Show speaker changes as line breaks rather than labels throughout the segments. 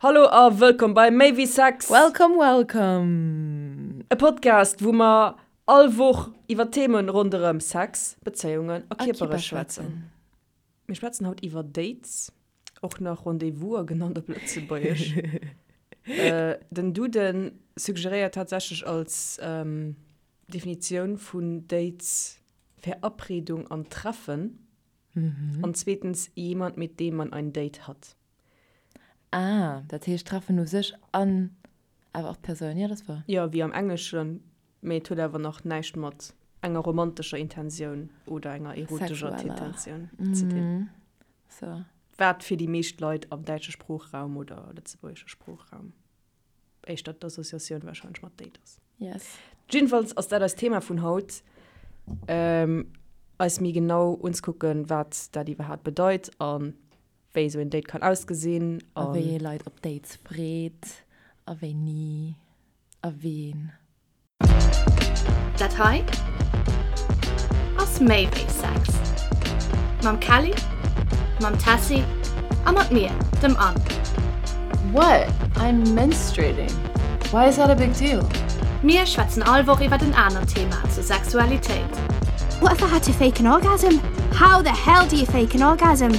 Hallo a wëllkomm bei Méi wéi Sex!
Welcome, welcome!
E Podcast, wou mer all Woch iwwer Themen ronderëm Sex, Bezéiungen a Kierpere schwätzen. Mir schwätzen haut iwwer Dates, och nach Rendez-vouser genannt op Lëtzebuergesch. Den Duden suggeréiert tatsächlech als Definitioun vun Dates Verabredung an Treffen an zweetens jemand, mit dem man ein Date hat.
Ah, dat heescht Treffen u sech an awer och d'Persoun, jo, dat ass wouer.
Jo, wéi am Engleschen, mee et huet awer nach näischt mat enger romantescher Intensioun oder enger erotescher Intentioun ze dinn.
So.
Wat fir déi meescht Leit am däitsche Sproochraum oder lëtzebuergesche Sproochraum éischter d'Associatioun warscheinlech mat Date ass.
Yes.
Jiddefalls ass dat eist Thema vun haut, eis méi genau unzekucken, wat dat iwwerhaapt bedeit a wéi esou een Date kann ausgesinn.
A wéi ee Leit op Dates freet a wéi ni a ween.
Dat hei ass méi wéi Sex. Mam Kelly, mam Tessy a mat mir, dem Anne.
What? I'm menstruating. Why is that a big deal?
Mir schwätzen all Woch iwwert en anert Thema zur Sexualitéit.
What if I had to fake an orgasm? How the hell do you fake an orgasm?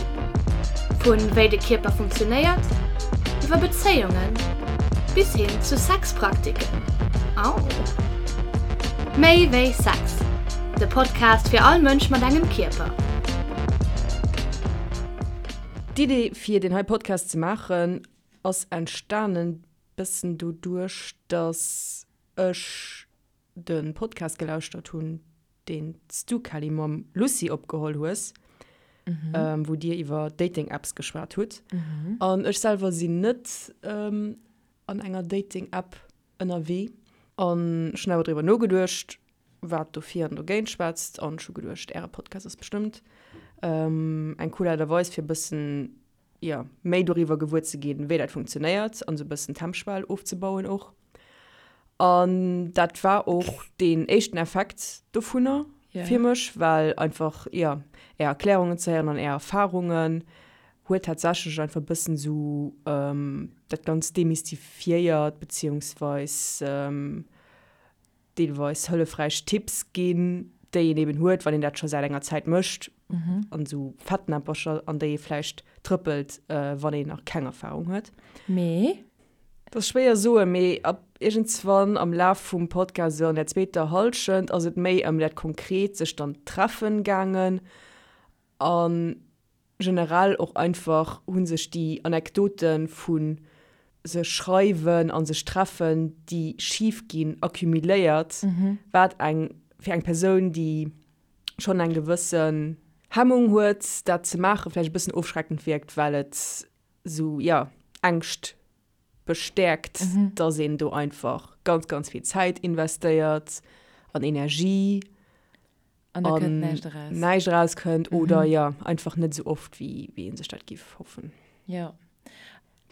Vu wéi de Kierper funktionéiert, iwwer Bezéiungen bis hin zu Sexpraktiken. Au! Méi wéi Sex, de Podcast fir all Mënsch mat engem Kierper.
D'Idee fir deen hei Podcast ze maachen ass entstanen bëssen doduerch dass ech de Podcast gelauschtert hunn, deen s du, Kelly, mam Lucie opgeholl hues, wou dir iwwer Dating-Apps geschwat hutt. An ech selwer sinn net an enger Dating-App ënnerwee. An ech hunn awer driwwer nogeduecht, wat dofir an dogéint schwätzt. An ech hu geduecht, äre Podcast ass bestëmmt eng cool Aart a Weis, fir e bëssen jo, méi doriwwer gewuer ze ginn, wéi dat funktionéiert an esou e bëssen d'Hemmschwell ofzebauen och. An dat war och deen éischten Effekt dovunner fir mech, well einfach, jo, Är Erklärungen ze héieren an Är Erfarungen huet tatsächlech einfach e bëssen esou dat Ganzt demystifiéiert, beziehungsweis deelweis hëllefräich Tipps ginn, déi een eben huet, wann een dat scho säit enger Zäit mécht, an esou Fettnäppercher, an déi ee vläicht trëppelt, wann een nach keng Erfarung huet.
Mee?
Dat ass schwéier soen, mee ab iergendswann am Laf vum Podcast, esou an der zweeter Hallschent, ass et méi ëm dat konkret sech dann treffen gaangen an Generell och einfach hu sech déi Anekdote vu sech schreiwen a sech treffen, déi schif ginn, accumuléiert, wat eng fir eng Persoun, déi schonn eng gewëssen Hemmung huet, dat ze maachen, vläicht e bëssen ofschreckend wierkt, well et esou, jo, Ängscht bestäerkt, dass een do einfach ganz, ganz vill Zäit investéiert an Energie.
An da kënnt näischt eraus.
Näischt erauskënnt oder jo, einfach net esou oft, wéi wéi ee sech dat giff hoffen.
Jo.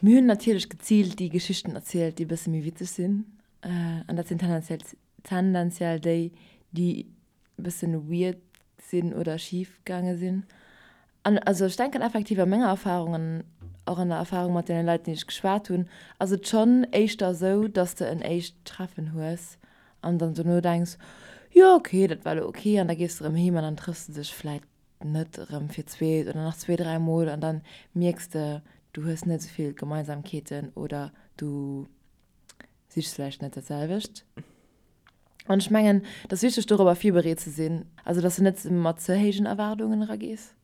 Mir hunn natierlech geziilt déi Geschichten erzielt, déi e bësse méi witzeg sinn. An dat sinn tendenziell tendenziell déi, déi e bëssen weird sinn oder schif gaange sinn. An also ech denken effektiv a menger Erfahrung an och an der Erfahrung mat deene Leit, déi ech geschwat hunn, ass et schonn éischter esou, dass de en éischt Treffen hues an dann dono denks, jo ok, dat war elo ok an da gees de erëm heem an dann trëffs de dech vläit net erëm fir d'zweet oder nach zwee, dräi Mol an dann mierks de, du hues net esou vill Gemeinsamkeeten oder du sichs vläicht net dat selwecht. An ech mengen, et ass wichteg dorobber virbereet ze sinn, also dass de net mat ze héijen Erwaardungen eragees.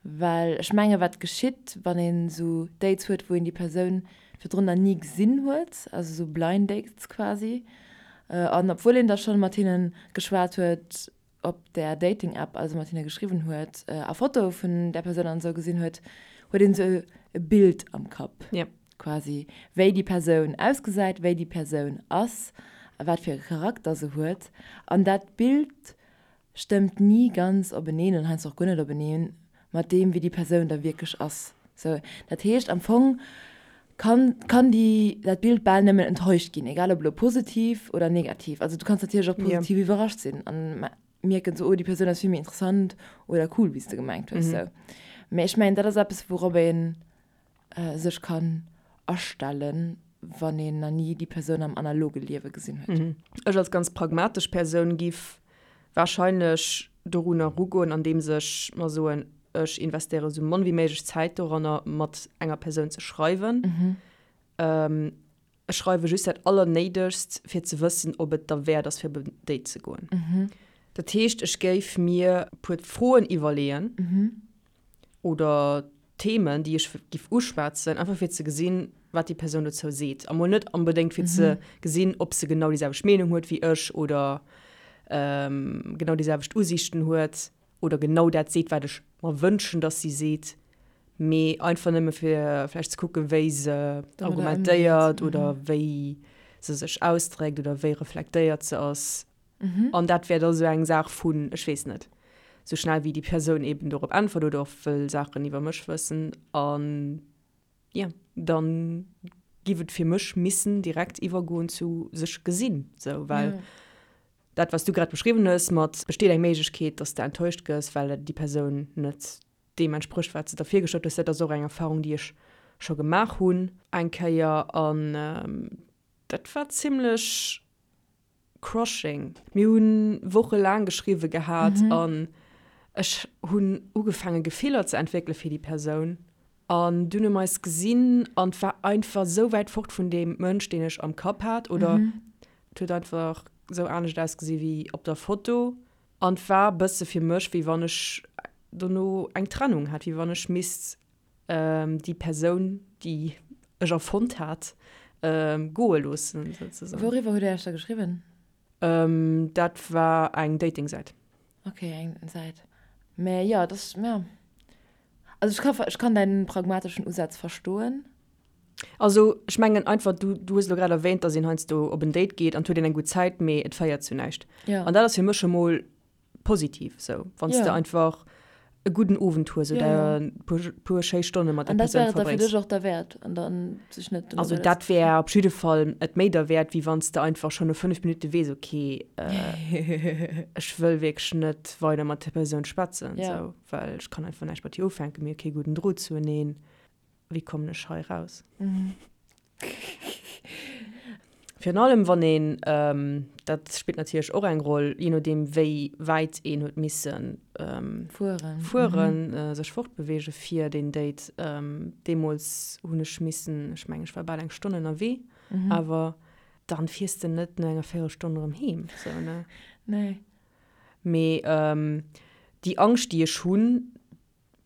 Well ech menge wat geschitt, wann een esou Dates huet, wou een déi Persoun virdrun nach ni gesinn huet, also esou blind dates quasi, an obwuel een da schonn mat hinne geschwat huet, op där Dating-App, also mat hinne geschriwwen huet a Fotoe vun där Persoun an esou gesinn huet, huet een esou e Bild am Kapp quasi, wéi déi Persoun ausgesäit, wéi déi Persoun ass a wat fir e Charakter se huet. An dat Bild stëmmt ni ganz openeen an heiansdo och guer net openeen mat deem, wéi déi Persoun da wierklech ass. Sou, dat heescht am Fong kann, kann déi, dat Bild bal nëmmen enttäuscht ginn, egal ob elo positiv oder negativ. Also du kanns natierlech och positiv yeah. iwwerrascht sinn an mierken sou, oh déi Persoun ass vill méi interessant oder cool, wéi s de gemengt hues. Mm -hmm. Sou. Mee ech mengen, dat ass eppes, wourop een. sech kann astellen, wann een nach ni déi Persoun am analoge Liewe gesinn huet.
Ech als ganz pragmatesch Persoun giff warscheinlech dorunner erugoen, andeems ech mer soen, ech investéiere sou mann wéi méiglech Zäit doranner, mat enger Persoun ze schreiwen. Ech schreiwe just dat Allernéidegst, fir ze wëssen, ob et derwäert ass, fir op en Date ze goen. Dat heescht, ech géif mir e puer Froen iwwerleeën oder Themen, déi ech giff uschwätzen, einfach fir ze gesinn, wat déi Persoun dozou seet. A mol net onbedéngt fir ze gesinn, ob se genau déi selwecht Meenung huet wéi ech oder genau déi selwecht Usiichten huet oder genau dat seet, wat ech mer wënschen, dass si seet, mee einfach nëmme fir vläicht ze kucken, wéi se argumentéiert oder wéi se sech ausdréckt oder wéi reflektéiert se ass. An dat wär da sou eng Saach vun, ech weess net, sou schnell wéi déi Persoun eben dorop äntwert oder och wëll Saachen iwwer mech wëssen. An jo, dann giff et fir mech missen direkt iwwergoen zu sech gesinn, sou, well dat wat s du grad beschriwwen hues mat besteet eng Méiglechkeet, dass de enttäuscht gëss, well déi Persoun net deem entsprécht wat s de der virgestallt hues, dat ass och eng Erfahrung déi ech scho gemaach hunn eng Kéier an dat war zimlech Crushing. Mir hu wochelaang geschriwwe gehat an ech hunn ugefaange Gefiller ze entwéckele fir déi Persoun. An dunn hu mer eis gesinn an et war einfach esou wäit fort vun deem Mënsch, deen ech am Kapp hat. Oder et huet einfach esou anescht ausgesi wéi op der Foto. An et war e bësse fir mech, wéi wann ech dono eng Trennung hätt, wéi wann ech misst déi Persoun, déi ech erfonnt hat, goe loossen,
souzesoen. Wouriwwer hutt Dir Iech da geschriwwen?
Dat war eng Dating-Säit.
Ok, eng Säit. Mä jo, dat ass, ja. Also ech ka, ech kann däin pragmateschen Usaz verstoen.
Also ech mengen einfach, du, du hues elo grad erwähnt, dass een heiansdo op en Date geet an et huet een eng gutt Zäit, mee et féiert zu näischt.
Ja.
An dat ass fir mech emol positiv sou, wann s de einfach e gudden Owend hues oder e puer schéi Stonne mat der
Persoun verbréngs. An dat wär et da fir dech och derwäert an dann sech net.
Also dat wär op jidde Fall et méi derwäert, wéi wann s de einfach schonn no 5 Minutte weess, ok, ech wëll wierklech net weider mat där Persoun schwätzen, sou, well ech kann einfach näischt mat hir ufänken, mir hu kee gudden Drot zueneen. Wéi kommen ech hei raus? Virun allem wann een, dat spillt natierlech och eng Roll, jee nodeem wéi wäit een huet misse fueren, sech fortbeweege fir deen Date. Deemools hunn ech missen, ech mengen ech war bal eng Stonn ënnerwee, awer dann fiers de net no enger Véierelstonn erëm heem, sou ne?
Nee.
Mee déi Angscht déi ech hunn,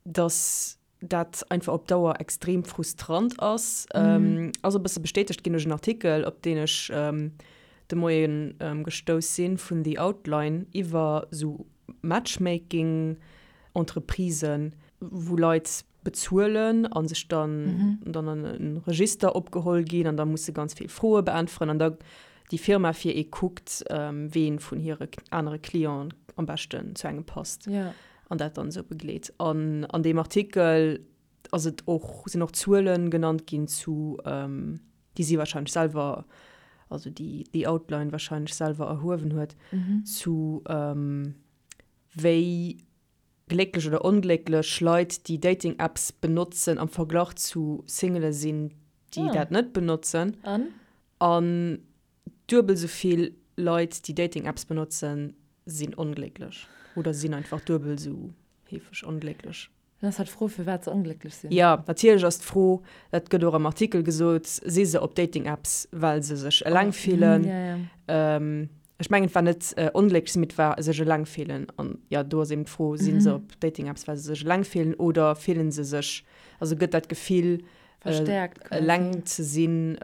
dass dat einfach op Dauer extrem frustrant ass, ass e bësse bestätegt ginn duerch en Artikel, op deen ech de Moie gestouss sinn, vun The Outline iwwer esou Matchmaking-Entreprisen, wou Leit bezuelen a sech dann dann an e Register opgeholl ginn an da musse ganz vill Froe beäntweren an da déi Firma fir ee kuckt, ween vun hire anere Clienten am beschten zu engem passt. An dat dann esou begleet. An an deem Artikel ass et och, sinn och Zuelen genannt ginn zu, déi si wahrscheinlech selwer, also déi The Outline wahrscheinlech selwer erhuewen huet, zu wéi glécklech oder onglécklech Leit, déi Dating-Apps benotzen am Verglach zu Singele sinn, déi dat net benotzen.
An?
An Duebel sou vill Leit, déi Dating-Apps benotzen, sinn onglécklech oder sinn einfach duebel sou heefeg onglécklech.
Dann ass halt d'Fro, firwat se onglécklech sinn.
Jo, natierlech ass d'Fro, dat gëtt och am Artikel gesot, si se op Dating-Apps, well se sech eleng fillen? Ech mengen, et war net onglécklech sinn, mee et war sech eleng fillen. An jo, do ass eben d'Fro, si se op Dating-Apps, well se sech eleng fillen oder fillen se sech, also gëtt dat Gefill,
Verstärkt
quasi. Eleng ze sinn,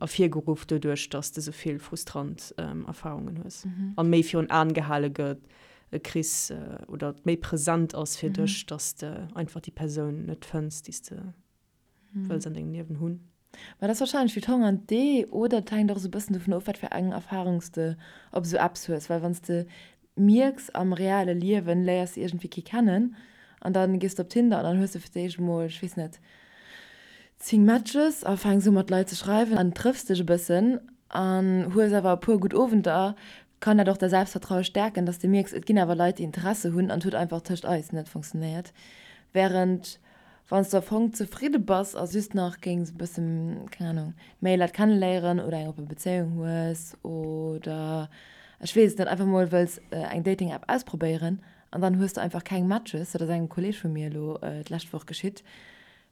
ervirgeruff doduerch, dass de sou vill frustrant Erfarungen hues an méi virun Aen gehale gëtt, kriss oder et méi present ass fir dech, dass de einfach déi Persoun net fënns, déi s de wëlls an dengem Liewen hunn.
Mä dat ass warscheinlech wéi d'Hong an d'Ee oder et hänkt och esou e bëssen dovun of, wat fir eng Erfarung s de op esou Apps hues. Well wann s de mierks, am reale Liewen léiers de iergendwéi kee kennen an dann gees de op Tinder an dann hues de fir d'éischt emol, ech weess net, 10 Matches a fänks u mat Leit ze schreiwen an trëffs dech e bëssen an hues awer e puer gutt Owenter, kann dat och däi Selbstvertraue stäerken, dass de mierks, et ginn awer Leit, déi Interesse hunn an et huet einfach tëscht eis net funktionéiert. Wärend. Wann s de am Fong zefridde bass a just nach géings e bëssen, keng Ahnung, méi Leit kenneléieren oder eng oppe Bezéiung hues oder ech weess et net, einfach mol wëlls eng Dating-App ausprobéieren an dann hues de einfach keng Matches, dat ass engem Kolleeg vu mir elo d'lescht Woch geschitt,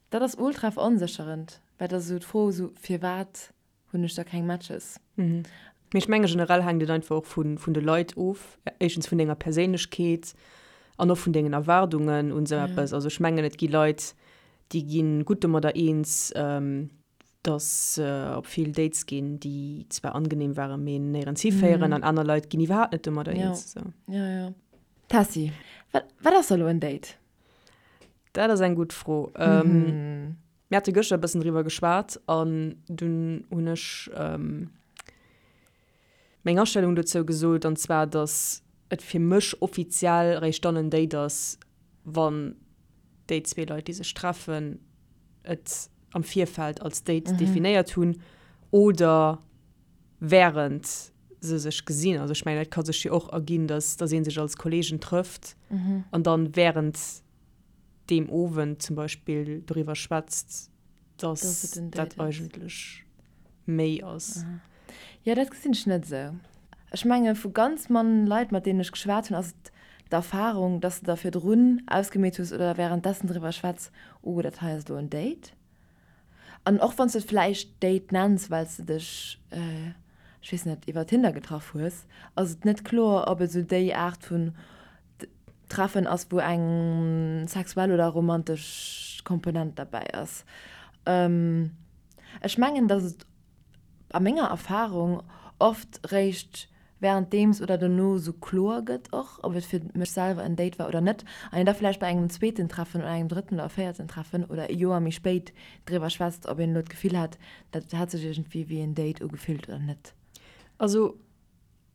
dat ass ultra veronsécherend, well dat ass esou d'Fro esou, firwat hunn ech da keng Matches.
Mee ech menge generell hänkt et einfach och vun de Leit of, éischtens vun denger Perséinlechkeet an och vun dengen Erwaardungen un esou eppes. Also ech mengen et gi Leit, déi gi gutt domadder eens, datt se op vill Dates ginn, déi zwar angenehm waren, mee néierens hiféieren an aner Leit ginn iwwerhaapt net domadder eens.
Jo, jo. Tessy, wat ass da elo en Date?
Dat ass eng gutt Fro. Mir hate gëschter e bëssen driwwer geschwat an dunn hunn ech meng Astellung dozou gesot, an zwar, datt et fir mech offiziell eréischt dann en Date ass, wann déi zwee Leit, déi sech treffen, et am Virfeld als Date definéiert hunn oder wärend se sech gesinn. Also ech mengen, et ka sech jo och erginn, datt datt ee sech als Kolleegen trëfft an dann wärend deem Owend zum Beispill doriwwer schwätzt, dass dat eigentlech méi ass.
Jo, dat gesinn ech net esou. Ech menge vu ganz mann Leit, mat deenen ech geschwat hunn, ass et d'Erfarung, dass de der virdrun ausgemeet hues oder wärenddessen driwwer schwätz, oh, dat hei ass elo en Date. An och wann s de et vläicht Date nenns, well s de dech, ech weess net, iwwer Tinder getraff hues, ass et net kloer, ob et esou déi Aart vun Treffen ass, wou eng sexuell oder romantesch Komponent derbäi ass. Ech mengen, datt et a menger Erfarung oft réischt wärenddeems oder dono sou kloer gëtt och, ob et fir mech selwer en Date war oder net, an een da vläicht bei engem zweeten Treffen oder engem drëtten oder véierten Treffen oder e Joer méi spéit driwwer schwätzt, ob een elo d'Gefill hat, dat hätt sech iergendwéi wéi en Date ugefillt oder net.
Also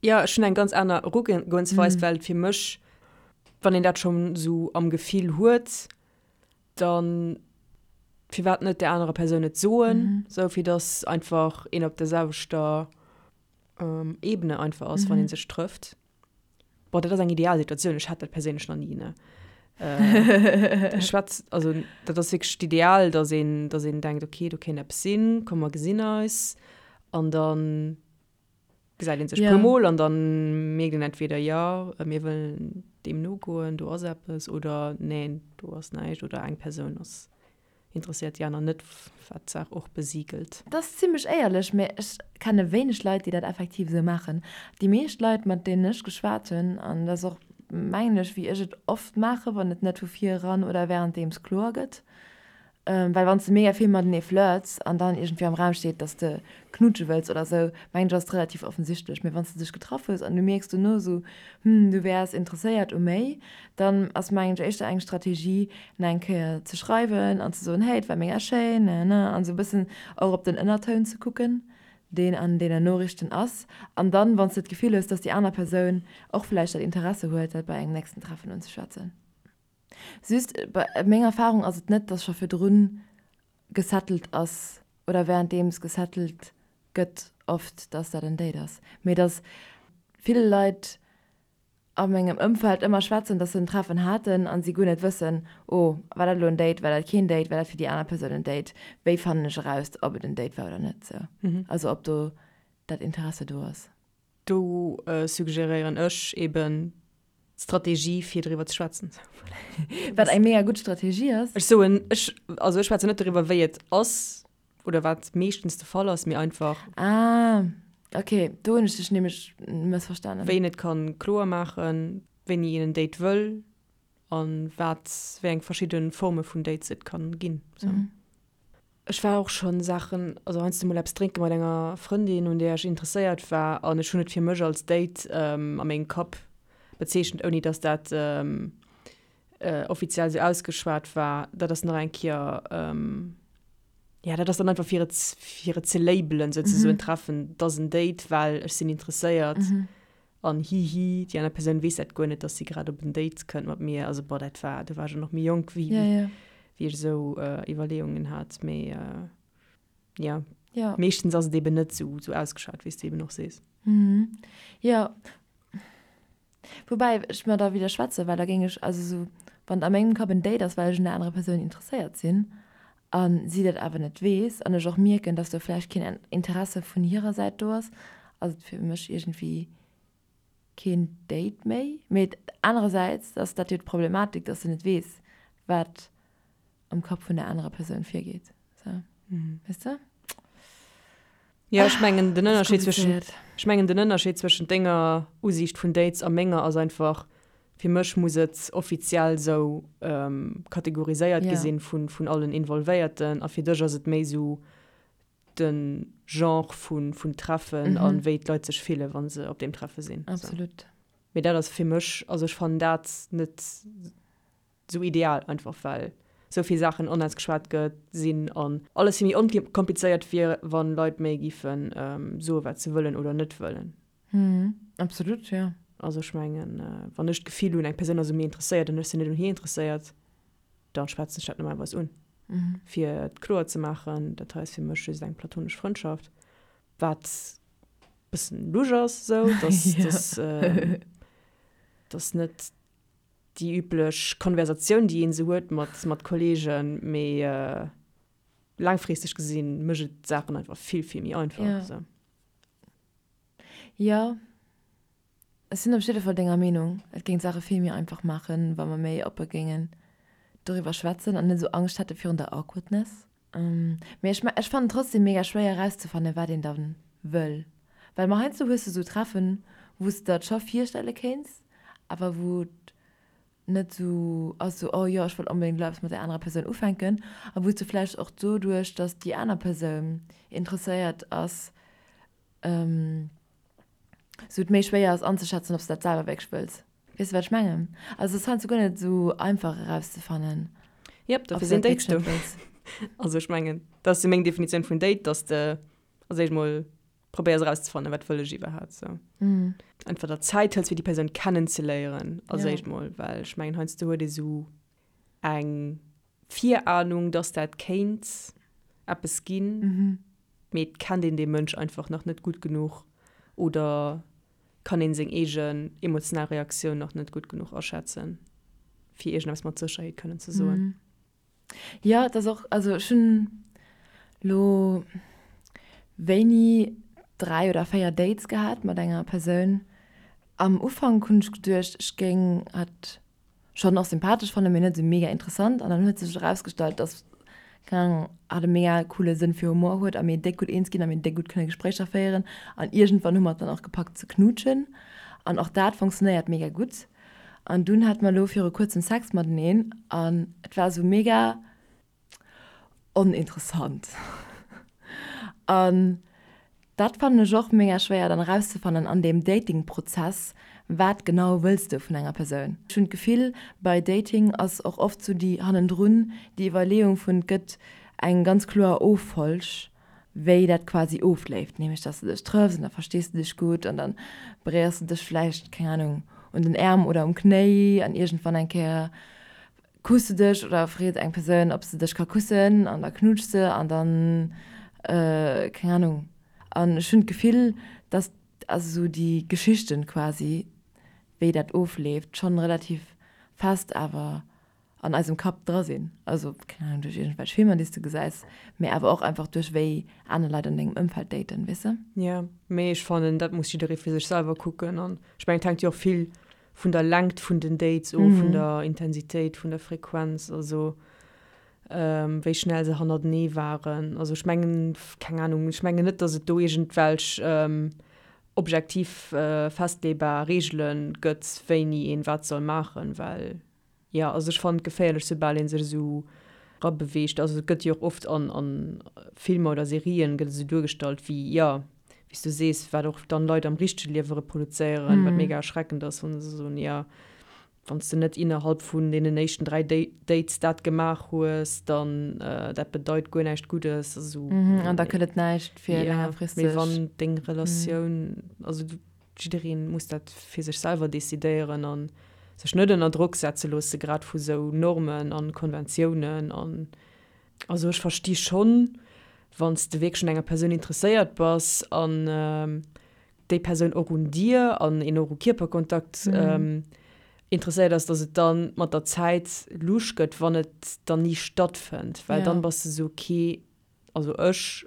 Jo, ech hunn eng ganz aner Erugoensweis, well fir mech, wann een dat schonn esou am Gefill huet, dann firwat net där anerer Persoun et soen, esou fir dass einfach een op der selwechter Ebene einfach ass, wann ee sech trëfft. Bon, dat ass eng ideal Situatioun, ech hat dat perséinlech nach ni, ne. Ech schwätz, also dat ass wierklech d'Ideal, dass een, dass een denkt, okay, do kéint eppes sinn, komm mer gesinn eis an dann Gesäit een sech puer Mol an dann mierkt een entweder, jo, mir wëllen deem nogoen, do ass eppes, oder neen, do ass näischt, oder eng Persoun ass interesséiert, déi aner net, wat d'Saach och besigelt.
Dat ass zimmlech éierlech, mä ech kenne wéineg Leit, déi dat effektiv esou maachen. Déi meescht Leit, mat deenen ech geschwat hunn, an dat ass och, mengen ech, wéi ech et oft maachen, wann et net vu vir eran oder wärenddeems kloer gëtt, Well wann s de mega vill matenee flirts an dann iergendwéi am Raum steet, dass de knutsche wëlls oder sou, mengen ech ass et relativ offensichtlech. Mee wann s de dech getraff hues an du mierks dono sou, hm, du wäers interesséiert u méi, dann ass mengen ech éischter eng Strategie nach eng Kéier ze schreiwen an ze soen, hey, et war mega schéin, ne ne, an sou e bëssen och op den Ënnertoun ze kucken, deen an deenen Noriichten ass. An dann, wann s de d'Gefill hues, dass déi aner Persoun och vläicht dat Interesse huet, dat bei engem nächsten Treffen unzeschwätzen. Just, bei menger Erfahrung ass et net, dass scho virdrun gesettelt ass oder währenddeems gesettelt gëtt oft, dass dat en Date ass, mee dass vill Leit a mengem Ëmfeld ëmmer schwätzen, dass se en Treffen haten a si guer net wëssen, oh, war dat elo en Date, war dat keen Date, war dat fir déi aner Persoun en Date, wéi fannen ech eraus, ob et en Date war oder net, sou. Also ob do dat Interesse do ass.
Do suggeréieren ech eben d'Strategie fir driwwer ze schwätzen.
Wat eng mega gutt Strategie ass.
Ech soen, ech, also ech schwätzen net doriwwer wéi et ass oder wat meeschtens de Fall ass, mee einfach.
Ah, ok, do hunn ech dech nämlech mëssverstanen.
Wéi een et kann kloer maachen, wéini een en Date wëll an wat, wéi eng verschidde Forme vun Dates et kann ginn. Sou. Ech war och schonn Saachen, also heiansdo mol eppes drénke mat enger Frëndin, un där ech interesséiert war, an ech hunn et fir mech als Date a mengem Kapp bezeechent, ouni datt dat offiziell esou ausgeschwat war. Dat ass nach eng Kéier, jo, dat ass dann einfach fir et, fir et ze labelen souzesoen, Treffen, 't ass en Date, well ech sinn interesséiert. An hihi, déi aner Persoun weess dat guer net, dass si grad op en Date kënnt mat mir. Also boah, dat war, do war ech och nach méi jonk, wéi,
ja, ja.
wéi ech esou äh, Iwwerleeungen hat. Mee äh, ja.
ja.
Meeschtens ass et eben net esou, esou ausgeschat, wéi s de eben och sees.
Mhm. Ja. Woubäi ech mer da widderschwätzen, well da géing ech, also esou, Wann et a mengem Kapp en Date ass, well ech un der anerer Persoun interesséiert sinn a si dat awer net weess an ech och mierken, dass do vläicht keen Interesse vun hirer Säit do ass, ass et fir mech iergendwéi keen Date méi. Mee anerersäits ass dat jo d'Problematik, dass de net weess, wat am Kapp vun der anerer Persoun virgeet. Sou, weess de?
Jo, ech mengen den Ënnerscheed zwëschen, ech mengen den Ënnerscheed zwëschent denger Usiicht vun Dates a menger ass einfach, fir mech muss et offiziell sou kategoriséiert gi sinn vun, vun allen Involvéierten a fir dech ass et méi sou de Genre vun, vun Treffen a wéi d'Leit sech fillen, wa se op deem Treffe sinn.
Absolut.
Mee dat ass fir mech, also ech fannen dat net sou ideal, einfach well sou vill Saachen onausgeschwat gëtt sinn an alles vill méi onkomplizéiert wier, wann Leit méi giffen soe wat se wëllen oder net wëllen.
Absolut, jo.
Also ech mengen, wann ech d'Gefill hunn, eng Persoun ass u mir interesséiert an ech sinn net un hir interesséiert, dann schwätzen ech dat normalerweis un, fir et kloer ze maachen, dat hei ass fir mech just eng platonesch Frëndschaft, wat bëssen lusch ass esou, dass dass dass net déi üblech Konversatioun, déi een esou huet mat, mat Kollegen, mee laangfristeg gesinn mécht et d'Saachen einfach vill, vill méi einfach.
Ja.
Esou.
Jo, ech sinn op jidde Fall denger Meenung. Et géing d'Saache vill méi einfach maachen, wa mer méi oppe géingen doriwwer schwätzen an net esou Angscht hätte virun der Awkwardness. Mee ech, ech fannen trotzdem mega schwéier erauszefannen, wat een dann wëll. Well ma heiansdo hues de sou Treffen, wou s de der et scho virstelle kéints, awer wou et net sou ass, sou oh jo, ech wëll onbedéngt elo eppes mat där anerer Persoun ufänken. A wou s de vläicht och doduerch, dass déi aner Persoun interesséiert ass, sou et méi schwéier ass anzeschätzen, ob s de dat selwer wierklech wëlls. Weess de, wat ech mengen? Also et ass heiansdo guer net esou einfach erauszefannen,
Jep,
ob
dofir
s de
sinn
dat
Dates
wierklech net
do.
wëlls.
Also ech mengen, dat ass jo meng Definitioun vun Date, dass de als éischt mol probéiers erauszefannen, wat wëll ech iwwerhaapt sou. Einfach der Zäit hëls, fir déi Persoun kennenzeléieren als
Ja.
éischt mol, well ech mengen, heiansdo huet ee sou eng Virahnung, dass dat kéint eppes ginn, mee et kennt een dee Mënsch einfach nach net gutt genuch oder kann een seng eegen emotional Reaktioun nach net gutt genuch aschätzen, fir iergendeppes mat Sécherheet kënnen ze soen.
Jo, et ass och, also ech hunn lo wéini 3 oder 4 Dates gehat mat enger Persoun. Am Ufank hunn ech geduecht, ech géing hatt schonn och sympathesch fannen, mee net esou mega interessant. An dann huet sech erausgestallt, dass, keng Ahnung, hatt e mega coole Sënn fir Humor huet a mir déck gutt eens ginn a mir déck gutt kënne Gespréicher féieren. An iergendwann hu mer et dann och gepackt ze knuutschen. An och dat funktionéiert mega gutt. An dunn hate mer elo viru kuerzem Sex mateneen an et war esou mega oninteressant. An dat fannen ech och mega schwéier dann erauszefannen an deem Dating-Prozess, wat genau wëlls de vun enger Persoun? Ech hunn d'Gefill, bei Dating ass och oft sou déi hannendrun déi Iwwerleeung vun, et gëtt eng ganz kloer Offolg, wéi dat quasi ofléift, nämlech dass de dech trëffs an da verstees de dech gutt an da beréiers de dech vläicht, keng Ahnung, un den Äerm oder um Knéi an iergendwann eng Kéier Kuss de dech oder freet eng Persoun ob se dech ka kussen an da knuutsch se an dann keng Ahnung. An ech hunn d'Gefill dass also sou déi Geschichten quasi wéi dat ofleeft schonn relativ fest awer an eisem Kapp dra sinn. Also keng Ahnung duerch iergendwelch Filmer déi s de gesäis, mee awer och einfach duerch wéi aner Leit an dengem Ëmfeld daten, weess de?
Jo, mee ech fannen dat muss jidderee fir sech selwer kucken an ech mengen et hänkt jo och vill vun der Längt vun den Dates of, vun der Intensitéit, vun der Frequenz, also wéi schnell se hannertenee waren. Also ech mengen, keng Ahnung, ech mengen net, datt et do iergendwelch objektiv festleebar Reegele gëtt, wéini een wat soll maachen, well Jo, also ech fannen et geféierlech soubal een sech esou rabeweegt. Also et gëtt jo och oft an an Filmer oder Serien gëtt et esou duergestallt wéi, jo, wéi s du sees, wat och dann Leit am richtege Liewe reproduzéieren, wat mega erschreckend ass, wann se soen, jo, wann s de net innerhalb vun deenen éischten 3 Dates dat gemaach hues, dann dat bedeit guer näischt Guddes. Also
An da gëtt et näischt fir längerfristeg.
Mee wann deng Relatioun, also du. Jiddereen muss dat fir sech selwer decidéieren an sech net ënner Drock setze loosse, grad vu sou Normen an Konventiounen an. Also ech versti schonn, wann s de wierklech un enger Persoun interesséiert bass an déi Persoun och un dir an een och u Kierperkontakt. Interesséiert ass, dass et dann mat der Zäit lusch gëtt, wann et dann ni stattfënnt, well dann bass de sou, ok, also ech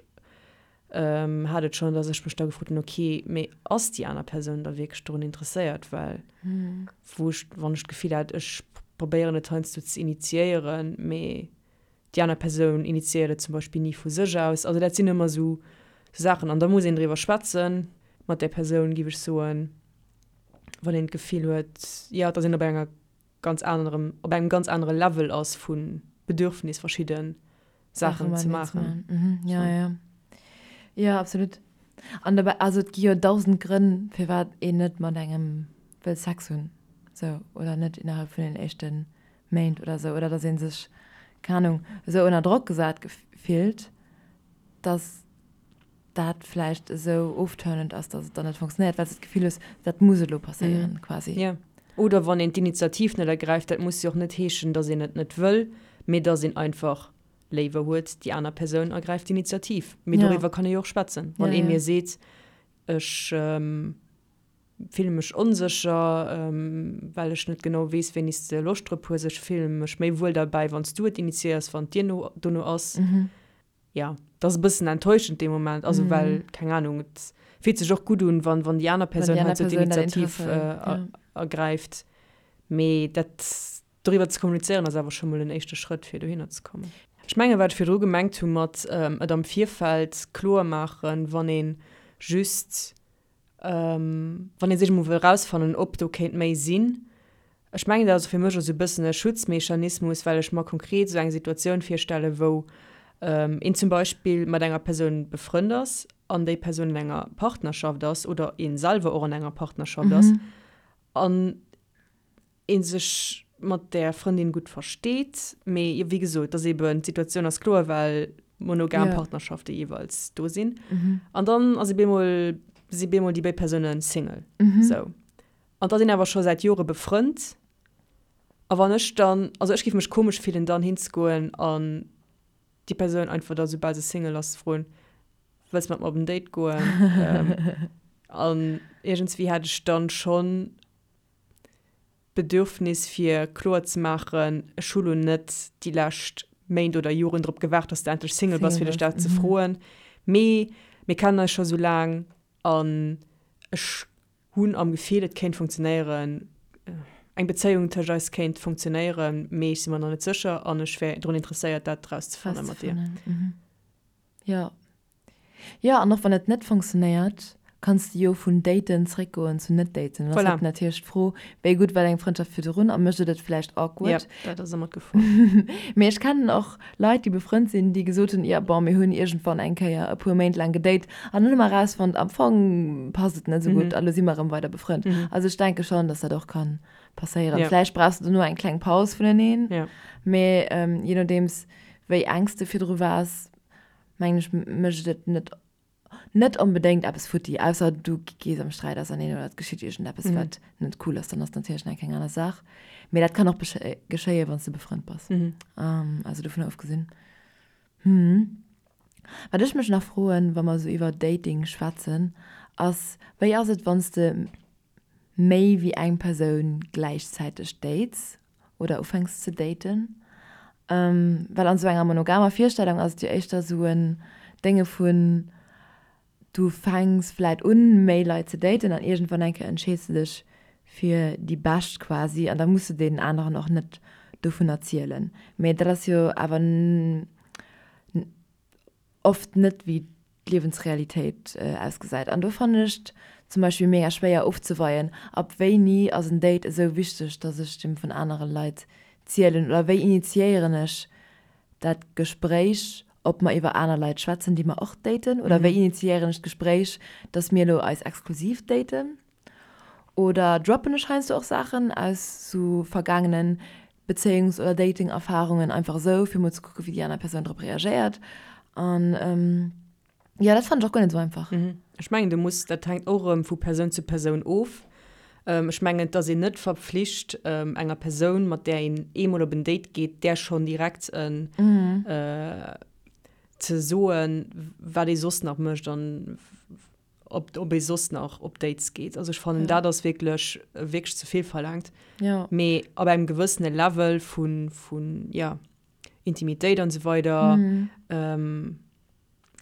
hat et schonn, dass ech mech da gefrot hunn, ok, mee ass déi aner Persoun da wierklech dorun interesséiert, well wou ech, wann ech d'Gefill hat, ech probéieren et heiansdo ze initiéieren, mee déi aner Persoun initiéiert et zum Beispill ni vu sech aus. Also dat sinn ëmmer sou Saachen an da muss een driwwer schwätzen mat där Persoun, géif ech soen. wann een d'Gefill huet, jo, dass een op enger ganz anerem, op engem ganz anere Level ass vu Bedürfnis verschidde Saachen ze maachen.
Jo, jo. Jo, absolut. An dobäi, also et gi jo dausend Grënn, firwat een net mat engem wëll Sex hunn, sou, oder net innerhalb vun den éischte Méint oder sou, oder dass ee sech, keng Ahnung, esou ënner Drock gesat fillt, dass. dat vläicht esou ofturnend ass, dass et dann net funktionéiert, well s de d'Gefill hues, dat muss elo passéieren, quasi.
Jo. Oder wann een d'Initiativ net ergräift, dat muss jo och net heeschen, dass een et net wëll, mee dass een einfach léiwer huet, déi aner Persoun ergräift d'Initiativ. Mee doriwwer kann ee jo och schwätzen. Wann ee mir seet, ech fille mech onsécher, well ech net genau weess, wéini s de Loscht drop hues, ech fille mech méi wuel derbäi, wann s du et initiéiers, wann et dir no dono ass. Ja, dat ass e bëssen enttäuschend dee Moment, also well, keng Ahnung, et fillt sech och gutt un, wann, wann déi aner Persoun halt sou d'Initiativ ergräift. Mee dat, doriwwer ze kommunizéieren ass awer scho mol en éischte Schrëtt, fir dohinner ze kommen. Ech mengen, wat ech virdru gemengt hu mat et am Virfeld kloer maachen, wann ee just Wann ee sech emol wëll erausfannen, ob do kéint méi sinn. Ech mengen, dat ass fir mech och esou e bëssen e Schutzmechanismus, well ech mer konkret esou eng Situatioun virstellen, wou een zum Beispill mat enger Persoun befrënnt ass an déi Persoun an enger Partnerschaft ass oder ee selwer och an enger Partnerschaft ass an ee sech mat där Frëndin gutt versteet, mee wéi gesot, dass eben d'Situatioun ass kloer, well monogam yeah. Partnerschafte jeeweils do sinn. Mhm. An dann ass bemol si bemol déi béid Persoune Single. Mhm. So. An da sinn awer scho säit Jore befrënnt. A wann ech dann, also ech géif mech komesch fillen, dann hinzegoen an déi Persoun einfach da soubal se Single ass ze froen, wëlls mat mer op en Date goen? ähm, an iergendswéi hätt ech dann schonn d'Bedürfnis fir kloer ze maachen, ech hu lo net déi lescht Méint oder Joren drop gewaart, dass de endlech Single bass, fir dech dat ze froen, mee mir kennen eis scho sou laang an ech hunn am Gefill, et kéint funktionéieren, eng Bezéiung tëscht eis kéint funktionéieren, mee ech si mer nach net sécher an ech wär drun interesséiert, dat erauszefanne mat dir.
Jo. Jo, an och wann et net funktionéiert, kanns de jo vun daten zréckgoen zu net daten. Dann ass halt natierlech d'Fro, wéi gutt war deng Frëndschaft virdrun a mécht et et vläicht awkward?
Jo, dat ass ëmmer d'Gefor.
Mee ech kennen och Leit, déi befrënnt sinn, déi gesot hunn, jo bon, mir hunn iergendwann eng Kéier e puer Méint laang gedate an dann hu mer erausfonnt, am Fong passt et net esou gutt a lo si mer erëm weider befrënnt. Also ech denke schonn, dass dat och ka passéieren. Vläicht brauchs de dono eng kleng Paus vuneneen, mee je nodeems wéi enk s de virdru waars, mengen ech, mécht et net net onbedéngt eppes futti, ausser du gees am Sträit auserneen oder et geschitt iergendeppes, wat net cool ass, dann ass natierlech nach eng aner Saach. Mee dat kann och geschéien, wann s de befrënnt bass. Also dovunner ofgesinn. Wat ech mech nach froen, wa mer esou iwwer Dating schwätzen, ass, Wéi ass et, wann s de méi wéi eng Persoun gläichzäiteg dates? oder ufänks ze daten. Well an esou enger monogamer Virstellung ass et jo éischter esou en Dénge vun, du fänks vläit un méi Leit ze daten an iergendwann eng Kéier entscheeds de dech fir déi bescht quasi an da muss de deenen aneren och net dovun erzielen. Mee dat ass jo awer oft net wéi d'Liewensrealitéit ausgesäit. An do fannen ech et zum Beispill mega schwéier ofzeweien, ab wéini ass en Date esou wichteg, dass ech dem vun anere Leit zielen oder wéi initiéieren ech dat Gespréich, ob mer iwwer aner Leit schwätzen, déi mer och daten oder wéi initiéieren ech d'Gespréich, dass mir elo eis exklusiv daten. Oder droppen ech heiansdo och Saachen aus sou vergaangenen Bezéiungs oder Dating-Erfarungen einfach esou, fir mol ze kucken, wéi déi aner Persoun drop reagéiert. An jo, dat fannen ech och guer net esou einfach.
Ech mengen, du muss, dat hänkt och erëm vu Persoun zu Persoun of. Ech mengen, et ass een net verpflicht, enger Persoun, mat där een eemol op en Date geet, där schonn direkt en ze soen, wat ee soss nach mécht an. ob, ob ee soss nach op Dates geet. Also ech fannen, dat ass wierklech, wierklech ze vill verlaangt.
Ja.
Mee ab engem gewëssene Level vun, vun, ja, Intimitéit an esou weider,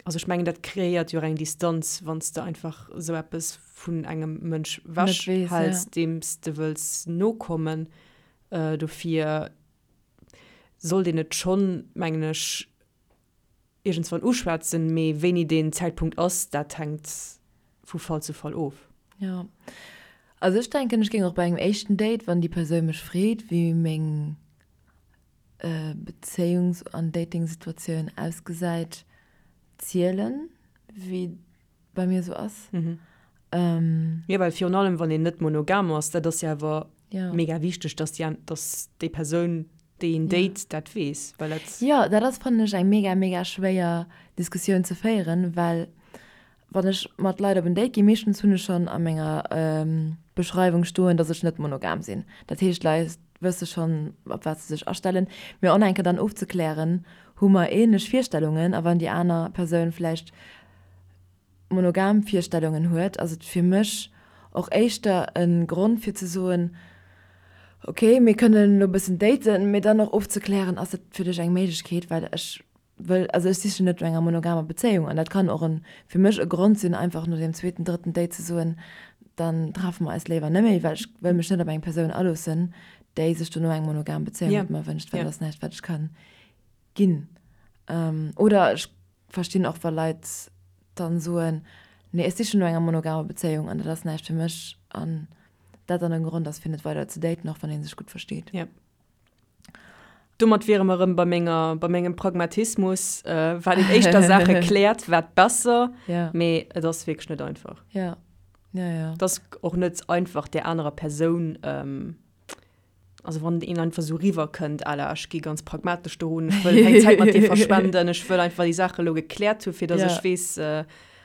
also ech mengen, dat kreéiert jo och eng Distanz, wann s de einfach esou eppes vun engem Mënsch
Net weess, ja.
wechhäls, deem s de wëlls nokommen. Dofir sollt een et schonn, mengen ech, iergendswann uschwätzen, mee wéini deen Zäitpunkt ass, dat hänkt vu Fall zu Fall of.
Jo, also ech denken, ech géing och bei engem éischten Date, wann déi Persoun mech freet, wéi meng Bezéiungs an Datingsituatioun ausgesäit, zielen, wéi et bei mir esou ass.
Jo, well virun allem, wann een net monogam ass, dat ass jo awer mega wichteg, dass déi, dass déi Persoun, déi een date, dat weess, well dat.
Jo, dat ass, fannen ech, eng mega, mega schwéier Diskussioun ze féieren, well wann ech mat Leit op en Date ginn, meeschtens hunn ech schonn a menger Beschreiwung stoen, dass ech net monogam sinn. Dat heescht, d'Leit wësse schonn, op wat se sech astellen. Mee och nach eng Kéier dann ofzeklären, hu mer änlech Virstellungen, a wann déi aner Persoun vläicht monogam Virstellungen huet, ass et fir mech och éischter e Grond fir ze soen, ok, mir kënnen elo e bëssen daten, mee dann och ofzeklären, ass dat fir dech eng Méiglechkeet, well ech wëll, also ech sichen net no enger monogamer Bezéiung an dat kann och en, fir mech e Grond sinn, einfach no deem zweeten, drëtten Date ze soen, dann treffe mer eis léiwer net méi, well ech wëll mech net op eng Persoun aloossen, déi sech dono eng monogam Bezéiung mat mer wënscht, well dat ass näischt wat ech ka ginn. Oder ech Verstinn och wa Leit dann soen, nee ech sichen no enger monogamer Bezéiung an dat ass näischt fir mech an dat dann en Grond ass fir net weider ze daten, och wann een sech gutt versteet.
Yep. Domat wiere mer erëm bei menger, bei mengem Pragmatismus, wat een éischter Saache kläert, wat besser,
Ja.
mee et ass wierklech net einfach.
Ja, ja, ja.
Et ass och net einfach där anerer Persoun, Also wann een einfach sou riwwer kënnt à la ech gi ganz pragmatesch dorun, ech wëll keng Zäit mat dir verschwenden, ech wëll einfach déi Saache lo gekläert hu fir datt ech weess,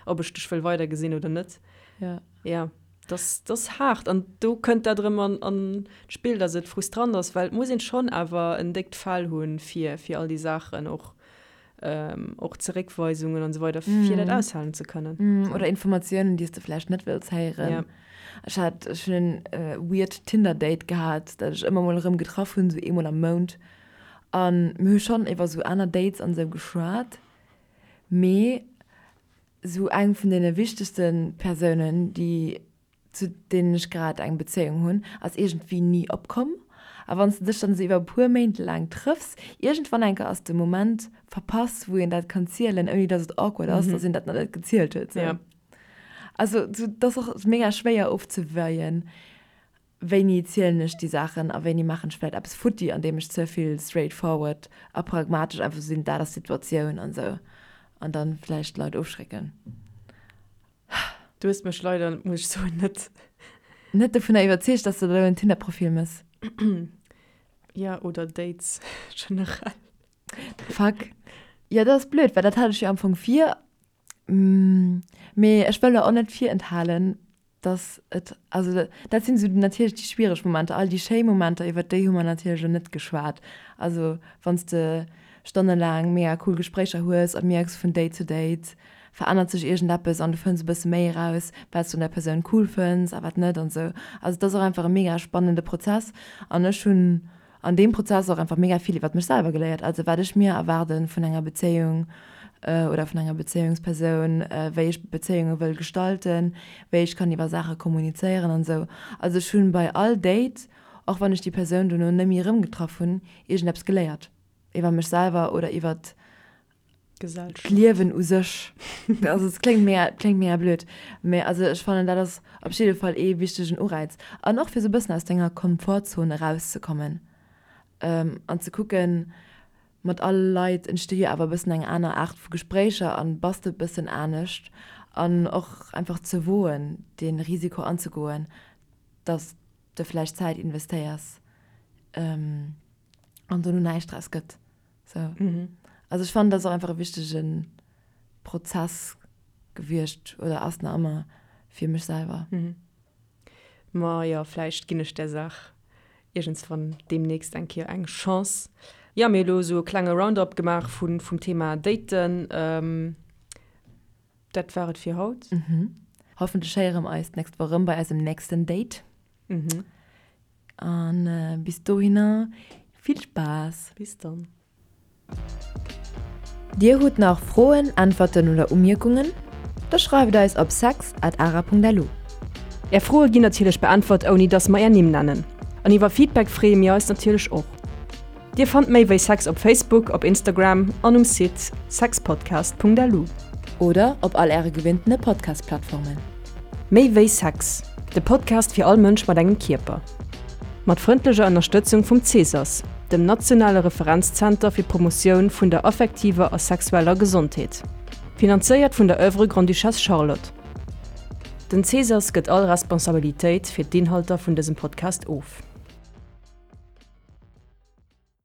ob ech dech wëll weidergesinn oder net.
Ja.
Ja, dass dass haart an do kënnt dat erëm an an d'Spill, datt et frustrant ass, well et muss een schonn awer en déckt Fell hunn fir fir all déi Saachen och och Zeréckweisungen an esou weider fir dat aushalen ze kënnen.
Oder Informatiounen, déi s de vläicht net wëlls héieren. Ja. Ech hat, ech hunn en weird Tinder-Date gehat, dat ech ëmmer mol erëm getraff hunn, esou eemol am Mount. A mir hu schonn iwwer esou aner Dates an esou geschwat, mee esou eng vun deene wichtegste Persounen, déi zu deenen ech grad eng Bezéiung hunn, ass iergendwéi ni opkomm. A wann s de dech dann esou iwwer e puer Méint laang trëffs, iergendwann eng Kéier ass de Moment verpasst, wou een dat kann zielen, ouni dass et awkward ass, dass een dat nach net gezielt huet. Sou. Also sou, et ass och mega schwéier ofzeweien, wéini zielen ech déi Saachen a wéini maachen ech vläicht eppes futti, andeem ech ze vill straightforward a pragmatesch einfach sou sinn, dat ass d'Situatioun an esou, an dann vläicht d'Leit ofschrécken.
Du hues mech leider, muss ech soen, net.
Net dovunner iwwerzeegt, dass de der elo en Tinder-Profil mëss.
Ja, oder Dates generell.
Fuck. Jo, dat ass blöd, well dat hat ech jo am Fong vir. Mee ech wëll der och net virenthalen, dass et, also dat sinn esou natierlech déi schwiereg Momenter. All déi schéi Momenter, iwwert déi hu mer natierlech elo net geschwat. Also wann s de stonnelaang mega cool Gespréicher hues a mierks vun Date zu Date verännert sech iergendeppes an du fënns e bësse méi eraus, wat s du un der Persoun cool fënns a wat net an esou. Also et ass och einfach e mega spannende Prozess an ech hunn an deem Prozess och einfach mega vill iwwert mech selwer geléiert, also wat ech mir erwaarde vun enger Bezéiung oder vun enger Bezéiungspersoun, wéi ech Bezéiunge wëll gestalten, wéi ech kann iwwer Saache kommunizéieren an esou. Also ech hunn bei all Date, och wann ech déi Persoun dono net méi erëmgetraff hunn, iergendeppes geléiert iwwer mech selwer oder iwwert d'Liewen u sech. Also et kléngt mega, kléngt mega blöd, mä also ech fannen dat ass op jidde Fall ee wichtegen Ureiz. An och fir esou e bëssen aus denger Komfortzon erauszekommen an ze kucken, mat alle Leit entsti jo awer e bëssen eng aner Aart vu Gespréicher an bass de e bëssen anescht an och einfach ze woen, dee Risiko anzegoen, dass de vläicht Zäit investéiers an dono näischt draus gëtt. So. Mhm. Also ech fannen, dat ass och einfach e wichtege Prozess gewiescht oder ass nach ëmmer fir mech selwer.
Mhm. Ma jo, vläicht ginn ech där Saach iergendswann deemnächst eng Kéier eng Chance. Jo, mir hu lo esou e klenge Roundup gemaach vun, vum Thema Daten. Ähm, Dat war et fir haut.
Mhm. Hoffentlech héiere mer eis d'nächst Woch erëm bei eisem nächsten Date. An bis dohinner vill Spaass!
Bis dann!
Dir hutt nach Froen, Äntwerten oder Umierkungen? Da schreift eis op sex at ara.lu.
Är Froe ginn natierlech beäntwert ouni dass mer är Nimm nennen. An iwwer Feedback freeë mir eis natierlech och. Dir fannt méi wéi Sex op Facebook, op Instagram an um Site sexpodcast.lu.
Oder op all äre gewinntene Podcast-Plattformen.
Méi wéi Sex, de Podcast fir all Mënsch mat engem Kierper. Mat frëndlecher Ënnerstëtzung vum CSAS, dem nationale Referenzzenter fir d'Promotioun vun der affektiver a sexueller Gesondheet. Finanzéiert vun der Oeuvre Grande-Duchesse Charlotte. Den CSAS gëtt all Responsabilitéit fir d'Inhalter vun dësem Podcast of.